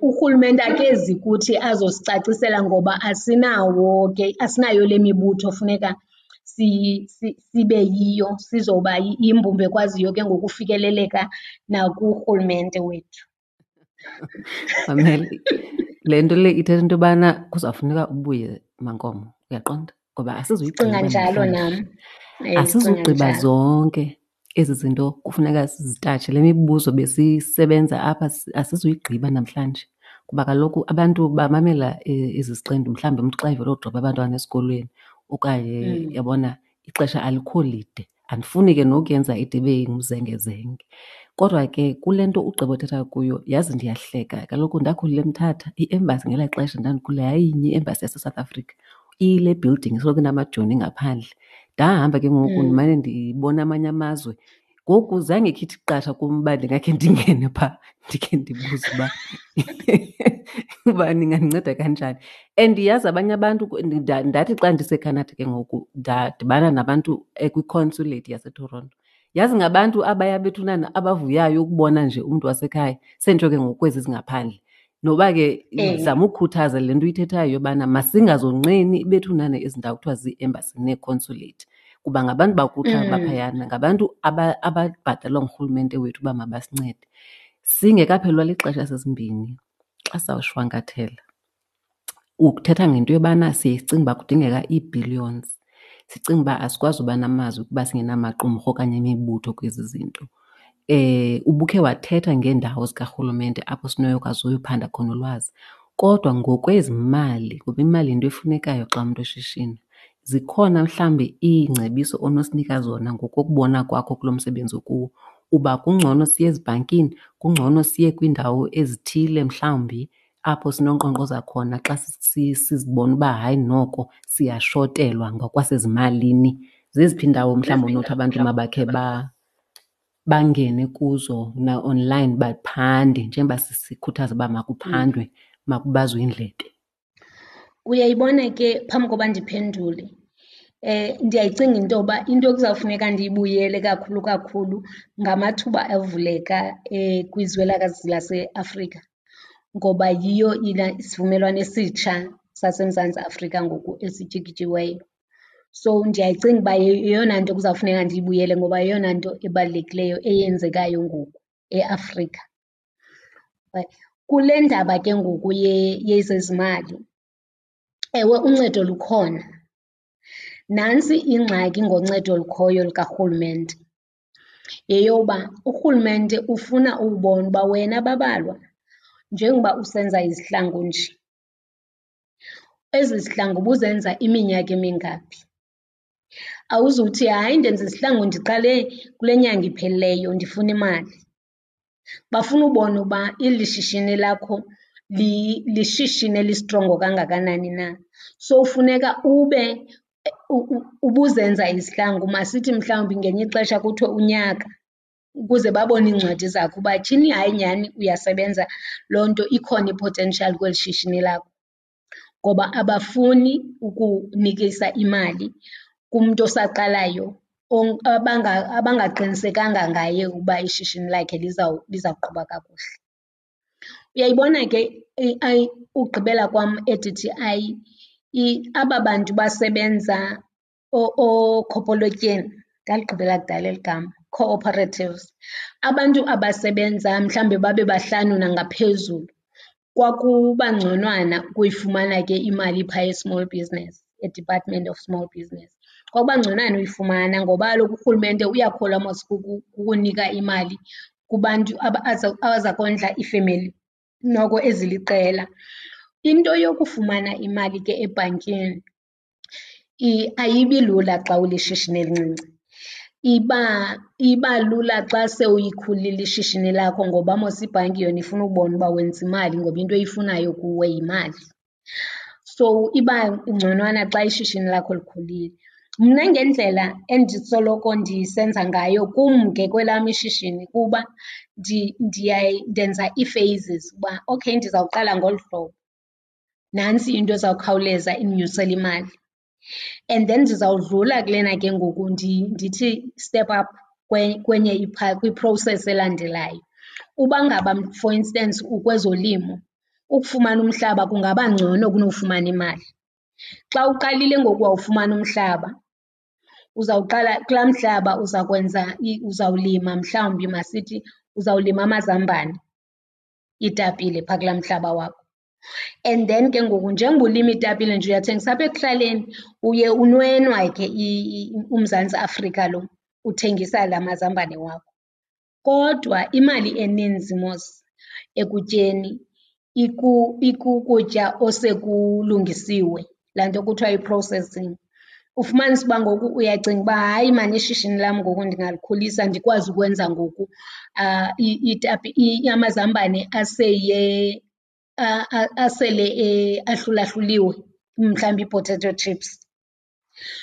Urhulumente akezi kuthi azosicacisela ngoba asinawo ke, asinayo le mibutho funeka sibe yiyo, sizoba yimbumba ekwaziyo ke ngoku ufikeleleka nakurhulumente wethu. Mamela, le nto le ithetha into yobana kuzawufuneka ubuye Mankomo, uyaqonda? Ngoba asizuyigqiba Ndicinga njalo namhlanje. nam. Ndicinga Asizugqiba njalo. zonke ezi zinto kufuneka sizitatshe. Le mibuzo besisebenza apha asizuyigqiba namhlanje kuba kaloku abantu bamamela ezi ziqendu, mhlawumbi umntu xa evela udropa abantwana esikolweni okanye yabona ixesha alikho lide. Andifuni ke nokuyenza ide ibe ngumzengezenge. Kodwa ke kule nto ugqiba uthetha kuyo, yazi ndiyahleka. Kaloku ndakhulela eMthatha, i-embassy ngelaa xesha ndandikhula yayinye i-embassy yaseSouth Africa. Iyile building isoloko inamajoni ngaphandle. Ndahamba ke ngoku ndimane ndibona amanye amazwe. Ngoku zange ikhe ithi qatha kum uba ndingakhe ndingene phaa ndikhe ndibuze uba uba ningandinceda kanjani. And yazi abanye abantu, ndathi xa ndiseCanada ke ngoku ndadibana nabantu kwi-consulate yaseToronto. Yazi ngabantu abaya bethunana abavuyayo ukubona nje umntu wasekhaya, senditsho ke ngoku kwezi zingaphandle. Noba ke ndizama ukukhuthaza le nto uyithethayo yobana masingazonqeni bethunana ezi ndawo kuthiwa zii-embassy nee-consulate, kuba ngabantu bakuthi abaphayana, ngabantu ababhatalwa ngurhulumente wethu uba mabasincede. Singekaphelelwa lixesha sesimbini xa sizawushwankathela, uthetha ngento yobana siye sicinge uba kudingeka ii-billions, sicinge uba asikwazi uba namazwi kuba singenamaqumrhu okanye imibutho kwezi zinto. Ubukhe wathetha ngeendawo zikarhulumente apho sinokwazi uyophanda khona ulwazi, kodwa ngokwezimali, ngoba imali yinto efunekayo xa umntu eshishina, zikhona mhlawumbi iingcebiso onosinika zona ngokokubona kwakho kulo msebenzi ukuwo, uba kungcono siye ezibhankini, kungcono siye kwiindawo ezithile mhlawumbi apho sinonkqonkqoza khona xa sizibona uba hayi noko siyashotelwa ngokwasezimalini? Zeziphi iindawo mhlawumbi onothi abantu mabakhe bangene kuzo na-online baphande, njengoba sikhuthaza uba makuphandwe, makubazwe iindlebe? Uyayibona ke, phambi koba ndiphendule, ndiyayicinga into yoba into ekuzawufuneka ndiyibuyele kakhulu kakhulu ngamathuba avuleka kwizwelakazi laseAfrika, ngoba yiyo isivumelwano esitsha saseMzantsi Afrika ngoku esityikityiweyo. So ndiyayicinga uba yeyona nto kuzawufuneka ndiyibuyele ngoba yeyona nto ebalulekileyo eyenzekayo ngoku eAfrika. Kule ndaba ke ngoku yezezimali, ewe uncedo lukhona. Nantsi ingxaki ngoncedo olukhoyo lukarhulumente, yeyoba urhulumente ufuna ukubona uba wena Babalwa, njengoba usenza izihlangu nje, ezi zihlangu ubuzenza iminyaka emingaphi? Awuzuthi hayi ndenza izihlangu ndiqale kule nyanga iphelileyo ndifuna imali. Bafuna ubona uba eli shishini lakho lishishini elistrongo kangakanani na. So funeka ube ubuzenza izihlangu, masithi mhlawumbi ngelinye ixesha kuthiwe unyaka, ukuze babone iincwadi zakho uba tyhini hayi nyhani uyasebenza, loo nto ikhona i-potential kweli shishini lakho. Ngoba abafuni ukunikisa imali kumntu osaqalayo abangaqinisekanga ngaye uba ishishini lakhe lizawuqhuba kakuhle. Uyayibona ke ugqibela kwam e-D_T_I, aba bantu basebenza ookhopolotyeni, ndaligqibela kudala eli gama, cooperatives, abantu abasebenza mhlawumbi babe bahlanu nangaphezulu, kwakuba ngconwana ukuyifumana ke imali phaya e-small business, eDepartment of Small Business. Kwakuba ngconwana uyifumana ngoba kaloku urhulumente uyakholwa mos kukunika imali kubantu abaza kondla iifemeli noko eziliqela. Into yokufumana imali ke ebhankini ayibi lula xa ulishishini elincinci. Iba lula xa sewuyikhulile ishishini lakho ngoba mos ibhanki yona ifuna ukubona uba wenza imali ngoba into eyifunayo kuwe yimali. So iba ngconwana xa ishishini lakho likhulile. Mna ngendlela endisoloko ndisenza ngayo kum ke kwelam ishishini kuba ndenza ii-phases uba okay ndizawuqala ngolu hlobo, nantsi into ezawukhawuleza indinyusele imali. And then ndizawudlula kulena ke ngoku ndithi step up kwenye kwi-process elandelayo. Uba ngaba for instance ukwezolimo, ukufumana umhlaba kungaba ngcono kunofumana imali. Xa uqalile ngoku wawufumana umhlaba, uzawuqala kulaa mhlaba uza kwenza, uzawulima mhlawumbi masithi uzawulima amazambane, iitapile phaa kulaa mhlaba wakho. And then ke ngoku njengoba ulima iitapile nje uyathengisa apha ekuhlaleni, uye unwenwa ke uMzantsi Afrika lo uthengisa la mazambane wakho. Kodwa imali eninzi mos ekutyeni ikukutya osekulungisiwe, laa nto kuthiwa yi-processing. Ufumanise uba ngoku uyacinga uba hayi maan ishishini lam ngoku ndingalikhulisa ndikwazi ukwenza ngoku amazambane asele ahlulahluliwe, mhlawumbi ii-potato chips.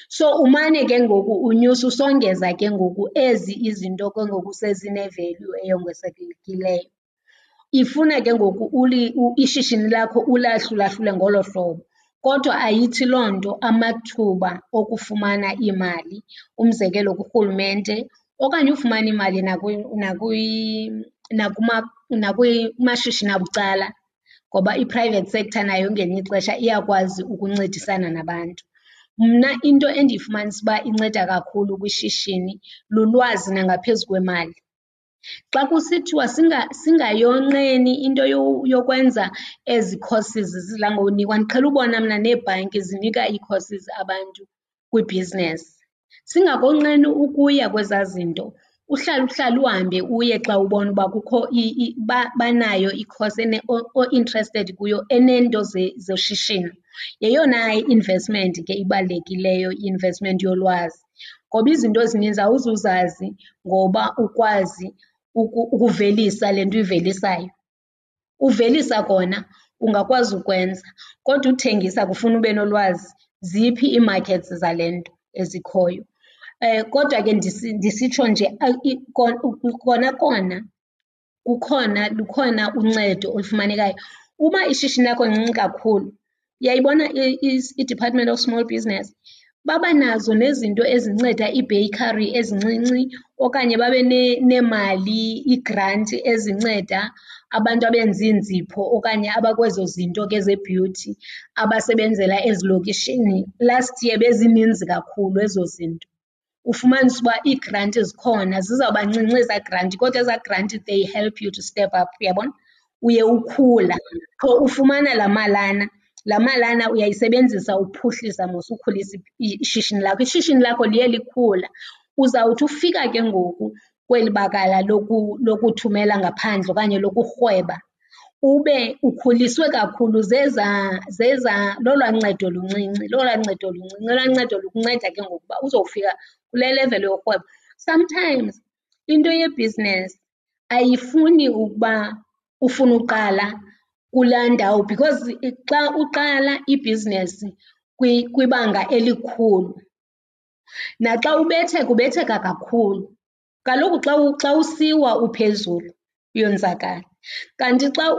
So umane ke ngoku unyusa usongeza ke ngoku ezi izinto ke ngoku sezine-value eyongezekileyo. Ifuna ke ngoku ishishini lakho ulahlulahlule ngolo hlobo. Kodwa ayithi loo nto amathuba okufumana iimali, umzekelo kurhulumente okanye ufumana imali nakumashishini abucala, ngoba i-private sector nayo ngelinye ixesha iyakwazi ukuncedisana nabantu. Mna into endiyifumanisa uba inceda kakhulu kwishishini lulwazi nangaphezu kwemali. Xa kusithiwa singayonqeni into yokwenza ezi courses zidla ngonikwa, ndiqhele ubona mna neebhanki zinika ii-courses abantu kwibhizinesi. Singakonqeni ukuya kwezaa zinto, uhlale uhlale uhambe uye xa ubona uba kukho banayo i-course o-interested kuyo eneento zoshishino. Yeyona investment ke ibalulekileyo i-investment yolwazi, ngoba izinto ezininzi awuzuzazi ngoba ukwazi ukuvelisa le nto uyivelisayo. Uvelisa kona ungakwazi ukwenza kodwa uthengisa kufuna ube nolwazi. Ziphi ii-markets zale nto ezikhoyo? Kodwa ke ndisitsho nje kona kona kukhona, lukhona uncedo olufumanekayo. Uba ishishini lakho lincinci kakhulu, uyayibona iDepartment of Small Business, baba nazo nezinto ezinceda iibheykhari ezincinci okanye babe neemali, iigranti ezinceda abantu abenza iinzipho okanye abakwezo zinto ke ze-beauty abasebenzela ezilokishini. Last year bezininzi kakhulu ezo zinto. Ufumanise uba iigranti zikhona, zizawuba ncinci ezaa granti kodwa ezaa granti they help you to step up, uyabona? Uye ukhula, qho ufumana laa malana, laa malana uyayisebenzisa uphuhlisa mos, ukhulisa ishishini lakho. Ishishini lakho liye likhula. Uzawuthi ufika ke ngoku kweli bakala lokuthumela ngaphandle okanye lokurhweba ube ukhuliswe kakhulu zezaa, zezaa, lolwaa ncedo luncinci, lolwaa ncedo luncinci, olwaa ncedo lukunceda ke ngoku uba uzofika kule level yorhweba. Sometimes into yebhizinesi ayifuni ukuba ufune uqala kulaa ndawo because xa uqala ibhizinesi kwibanga elikhulu naxa ubetheka ubetheka kakhulu. Kaloku xa usiwa uphezulu uyonzakala, kanti xa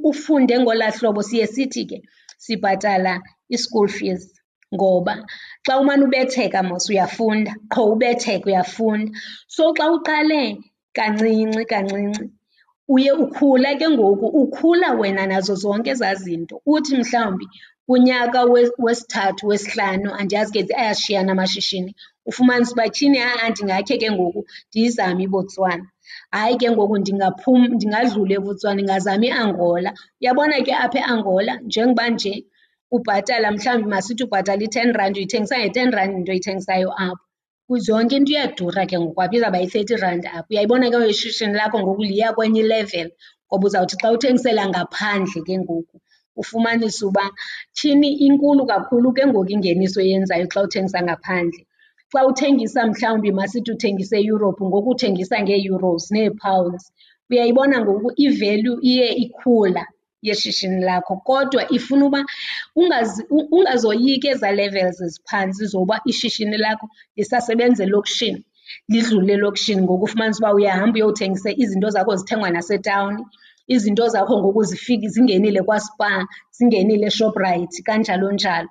ufunde ngolaa hlobo siye sithi ke sibhatala i-school fees ngoba xa umane ubetheka mos uyafunda, qho ubetheka uyafunda. So xa uqale kancinci kancinci uye ukhula ke ngoku, ukhula wena nazo zonke ezaa zinto. Uthi mhlawumbi kunyaka wesithathu, wesihlanu, andiyazi ke ayashiyana amashishini, ufumanise uba tyhini ha-a ndingakhe ke ngoku ndiyizame iBotswana. Hayi ke ngoku ndingaphuma ndingadlula eBotswana ndingazama iAngola. Uyabona ke apha eAngola njengoba nje ubhatala mhlawumbi masithi ubhatala i-ten rand uyithengisa nge-ten rand into oyithengisayo apho. Yonke into iyadura ke ngoku apha, izawuba yi-thirty rand apha. Uyayibona ke ngoku ishishini lakho ngoku liya kwenye ilevel ngoba uzawuthi xa uthengisela ngaphandle ke ngoku ufumanise uba tyhini inkulu kakhulu ke ngoku ingeniso oyenzayo xa uthengisa ngaphandle. Xa uthengisa mhlawumbi masithi uthengisa eEurope ngoku uthengisa ngee-euros nee-pounds. Uyayibona ngoku i-value iye ikhula yeshishini lakho kodwa ifuna uba ungazoyiki ezaa levels ziphantsi zoba ishishini lakho lisasebenza elokishini, lidlule elokishini ngoku ufumanise uba uyahamba uyothengisa izinto zakho zithengwa nasetawuni, izinto zakho ngoku zifike zingenile kwaSpar, zingenile eShoprite kanjalo njalo.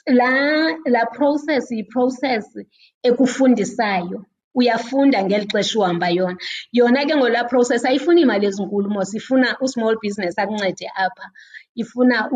Laa process yi-process ekufundisayo, uyafunda ngeli xesha uhamba yona. Yona ke ngoku laa process ayifuni iimali ezinkulu mos, ifuna u-small business akuncede apha, ifuna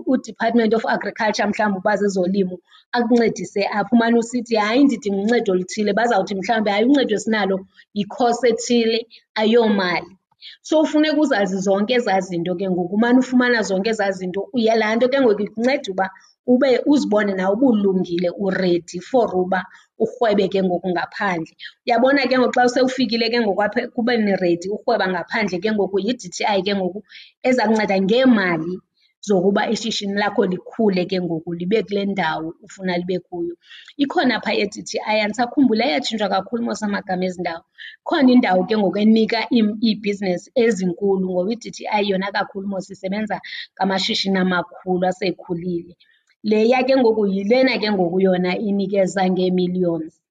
uDepartment of Agriculture mhlawumbi uba zezolimo akuncedise apha. Umane usithi hayi ndidinga uncedo oluthile, bazawuthi mhlawumbi hayi uncedo esinalo yi-course ethile ayomali. So funeka uzazi zonke ezaa zinto ke ngoku, umane ufumana zonke ezaa zinto. Laa nto ke ngoku ikunceda uba ube uzibone nawe uba ulungile uredi for uba urhwebe ke ngoku ngaphandle. Uyabona ke ngoku xa sewufikile ke ngoku apha ekubeni redi urhweba ngaphandle ke ngoku yi-D_T_I ke ngoku eza kunceda ngeemali zokuba ishishini lakho likhule ke ngoku libe kule ndawo ufuna libe kuyo. Ikhona phaa e-D_T_I, andisakhumbuli ayatshintshwa kakhulu mos amagama ezi ndawo. Ikhona indawo ke ngoku enika iibhizinesi ezinkulu ngoba i-D_T_I yona kakhulu mos isebenza ngamashishini amakhulu asekhulile. Leya ke ngoku yilena ke ngoku yona inikeza ngee-millions.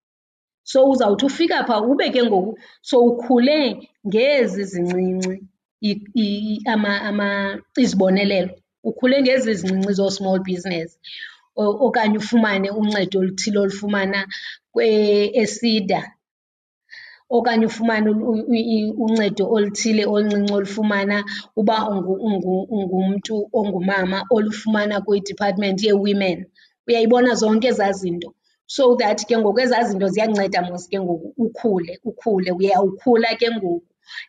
So uzawuthi ufika phaa ube ke ngoku sowukhule ngezi zincinci izibonelelo, ukhule ngezi zincinci zoo-small business okanye ufumane uncedo oluthile olufumana eSEDA okanye ufumane uncedo oluthile oluncinci olufumana uba ungumntu ongumama olufumana kwiDepartment yeeWomen. Uyayibona zonke ezaa zinto? So that ke ngoku ezaa zinto ziyakunceda mos ke ngoku ukhule, ukhule. Uyawukhula ke ngoku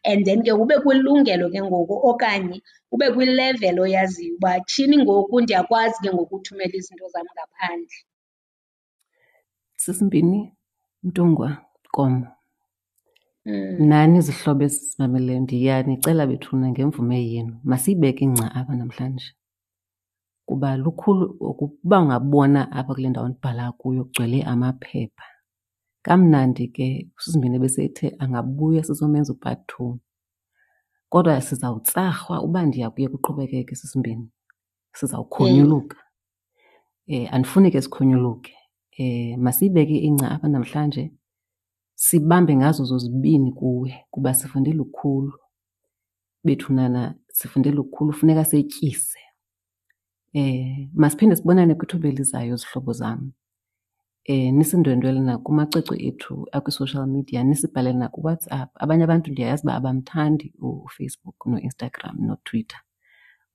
and then ke ube kwilungelo ke ngoku okanye ube kwilevel oyaziyo uba tyhini ngoku ndiyakwazi ke ngoku uthumela izinto zam ngaphandle. Sisimbini, Mntungwa, Nkomo. Nani zihlobo ezisimameleyo ndiyanicela bethuna ngemvume yenu masiyibeke ingca apha namhlanje kuba lukhulu ukuba ungabona apha kule ndawo ndibhala kuyo kugcwele amaphepha. Kamnandi ke uSisimbini ebesethe angabuya sizomenza u-part two. Kodwa sizawutsarhwa uba ndiya kuye kuqhubekeke Sisimbini, sizawukhonyuluka. Andifuni ke sikhonyuluke. Masiyibeke ingca apha namhlanje sibambe ngazo zozibini kuwe kuba sifunde lukhulu. Bethunana sifunde lukhulu, funeka setyise. Masiphinde sibonane kwithuba elizayo zihlobo zam. Nisindwendwele nakumacwecwe ethu akwi-social media, nisibhalele nakuWhatsApp. Abanye abantu ndiyayazi uba abamthandi uFacebook noInstagram noTwitter.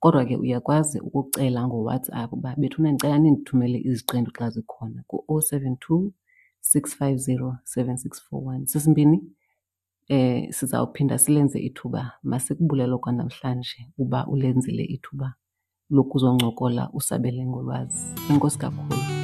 Kodwa ke uyakwazi ukucela ngoWhatsApp uba bethuna ndicela nindithumele iziqendu xa zikhona ku-072 650 7641. Sisimbini, sizawuphinda silenze ithuba. Masikubulele kwanamhlanje uba ulenzile ithuba lokuzoncokola usabele ngolwazi. Enkosi kakhulu.